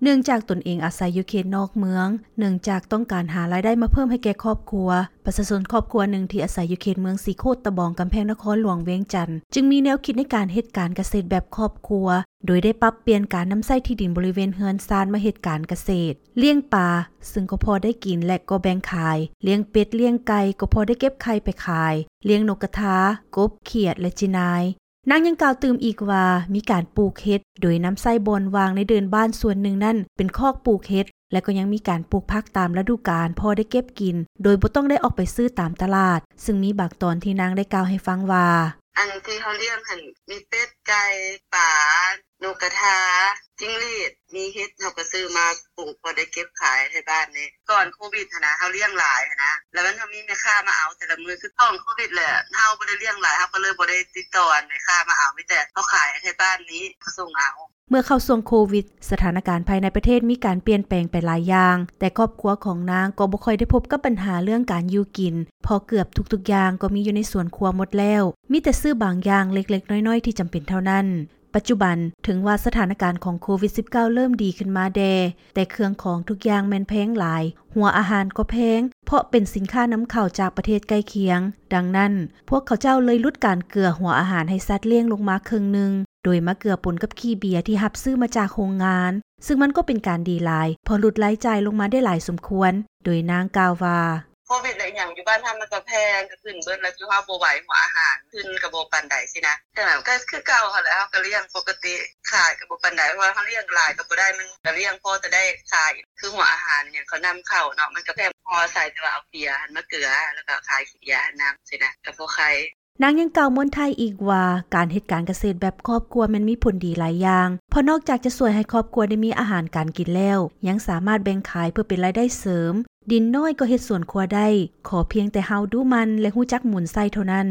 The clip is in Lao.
ເນື່ອງຈາກຕົນເອງອາໄສຢູ່ເຂດນອກເມືອງ, ເນື່ອງຈາກຕ້ອງການຫາລາຍໄດ້ມາເພີ່ມໃຫ້ແກ່ຄອບຄົວ, ປະຊາຊົນຄອບຄົວໜຶ່ງທີ່ອາໄສຢູ່ເຂດເມືອງສີໂຄດຕະບອງ ກຳແພງນະຄອນຫຼວງວຽງຈັນ ຈຶ່ງມີແນວຄິດໃນການເຮັດການກະເສດແບບຄອບຄົວ ໂດຍໄດ້ປັບປ່ຽນການນຳໃຊ້ທີ່ດິນບໍລິເວນເຮືອນຊານມາເຮັດການກະເສດ, ລ້ຽງປາ, ຊຶ່ງກໍພໍໄດ້ກິນ ແລະ ກໍແບ່ງຂາຍ, ລ້ຽງເປັດ, ລ້ຽງໄກ່, ກໍພໍໄດ້ເກັບໄຂ່ໄປຂາຍ, ລ້ຽງນົກກະທາ, ກົບ, ຂຽດ ແລະ ຈີນາຍ. ນາງຍັງກ່າວຕື່ມອີກວ່າ ມີການປູກເຫັດ ໂດຍນຳໃຊ້ບ່ອນວ່າງໃນເດີ່ນບ້ານສ່ວນໜຶ່ງນັ້ນເປັນຄອກປູກເຫັດ ແລະ ກໍຍັງມີການປູກຜັກຕາມລະດູການ ພໍໄດ້ເກັບກິນ ໂດຍບໍ່ຕ້ອງໄດ້ອອກໄປຊື້ຕາມຕະຫຼາດ, ຊຶ່ງມີບາງຕອນທີ່ນາງໄດ້ກ່າວໃຫ້ຟັງວ່າ: ອັນທີ່ເຮົາລ້ຽງຫັ້ນ ມີເປັດ, ໄກ່, ປາ, ນົກກະທາ, ຈິ້ງຫຼີດ, ມີເຫັດ ເຮົາກໍຊື້ມາປູກ ພໍໄດ້ເກັບຂາຍໃຫ້ບ້ານນີ້. ກ່ອນໂຄວິດຫັ້ນນະ ເຮົາລ້ຽງຫຼາຍຫັ້ນນະ ແລ້ວມັນກໍມີແມ່ຄ້າມາເອົາແຕ່ລະມື້. ຄືກ່ອນໂຄວິດແຫຼະ ເຮົາບໍ່ໄດ້ລ້ຽງຫຼາຍ ເຮົາກໍເລີຍບໍ່ໄດ້ຕິດຕໍ່ແມ່ຄ້າມາເອົາ ມີແຕ່ເຮົາຂາຍໃຫ້ບ້ານນີ້ ເຂົາສົ່ງເອົາ. ເມື່ອເຂົ້າຊ່ວງໂຄວິດ, ສະຖານະການພາຍໃນປະເທດມີການປ່ຽນແປງໄປຫຼາຍຢ່າງ, ແຕ່ຄອບຄົວຂອງນາງກໍບໍ່ຄ່ອຍໄດ້ພົບກັບບັນຫາເລື່ອງການຢູ່ກິນ ເພາະເກືອບທຸກໆຢ່າງກໍມີຢູ່ໃນສວນຄົວໝົດແລ້ວ, ມີແຕ່ຊື້ບາງຢ່າງເລັກໆນ້ອຍໆທີ່ຈຳເປັນເທົ່ານັ້ນ. ປັດຈຸບັນ, ເຖິງວ່າສະຖານະການຂອງໂຄວິດສິບເກົ້າ ເລີ່ມດີຂຶ້ນມາແດ່, ແຕ່ເຄື່ອງຂອງທຸກຢ່າງແມ່ນແພງຫຼາຍ, ຫົວອາຫານກໍແພງ ເພາະເປັນສິນຄ້ານຳເຂົ້າຈາກປະເທດໃກ້ຄຽງ. ດັ່ງນັ້ນ, ພວກເຂົາເຈົ້າເລີຍຫຼຸດການເກືອຫົວອາຫານໃຫ້ສັດລ້ຽງລົງມາເຄິ່ງໜຶ່ງ, ໂດຍມາເກືອປົນກັບຂີ້ເບຍທີ່ຮັບຊື້ມາຈາກໂຮງງານ, ຊຶ່ງມັນກໍເປັນການດີຫຼາຍ ເພາະຫຼຸດລາຍຈ່າຍລົງມາໄດ້ຫຼາຍສົມຄວນ, ໂດຍນາງກ່າວວ່າ: ໂຄວິດ ແລະ ອີ່ຫຍັງຢູ່ບ້ານເຮົາມັນກໍແພງ ກໍຂຶ້ນເບິດ ແລ້ວຈຸເຮົາບໍ່ໄຫວ ຫົວອາຫານຂຶ້ນກໍບໍ່ປານໃດຊີ້ນະ. ແຕ່ມັນກໍຄືເກົ່າຫັ້ນແຫຼະ ເຮົາກໍລ້ຽງປົກກະຕິ ຂາຍກໍບໍ່ປານໃດ ເພາະວ່າເຮົາລ້ຽງຫຼາຍກໍບໍ່ໄດ້ ມັນກໍລ້ຽງພໍແຕ່ໄດ້ຂາຍ. ຄືຫົວອາຫານຫຍັງເຂົານຳເຂົ້າເນາະ ມັນກໍແພງ ເຮົາອາໄສແຕ່ວ່າເອົາເບຍຫັ້ນມາເກືອ ແລ້ວກໍຂາຍເບຍຫັ້ນນຳຊີ້ນະ ກໍພໍໄຄ. ນາງຍັງກ່າວມ້ວນທ້າຍອີກວ່າ ການເຮັດການກະເສດແບບຄອບຄົວແມ່ນມີຜົນດີຫຼາຍຢ່າງ ເພາະນອກຈາກຈະຊ່ວຍໃຫ້ຄອບຄົວໄດ້ມີອາຫານການກິນແລ້ວ ຍັງສາມາດແບ່ງຂາຍເພື່ອເປັນລາຍໄດ້ເສີມ, ດິນນ້ອຍກໍເຮັດສວນຄົວໄດ້ ຂໍພຽງແຕ່ເຮົາດຸໝັ່ນ ແລະ ຮູ້ຈັກໝູນໃຊ້ເທົ່ານັ້ນ.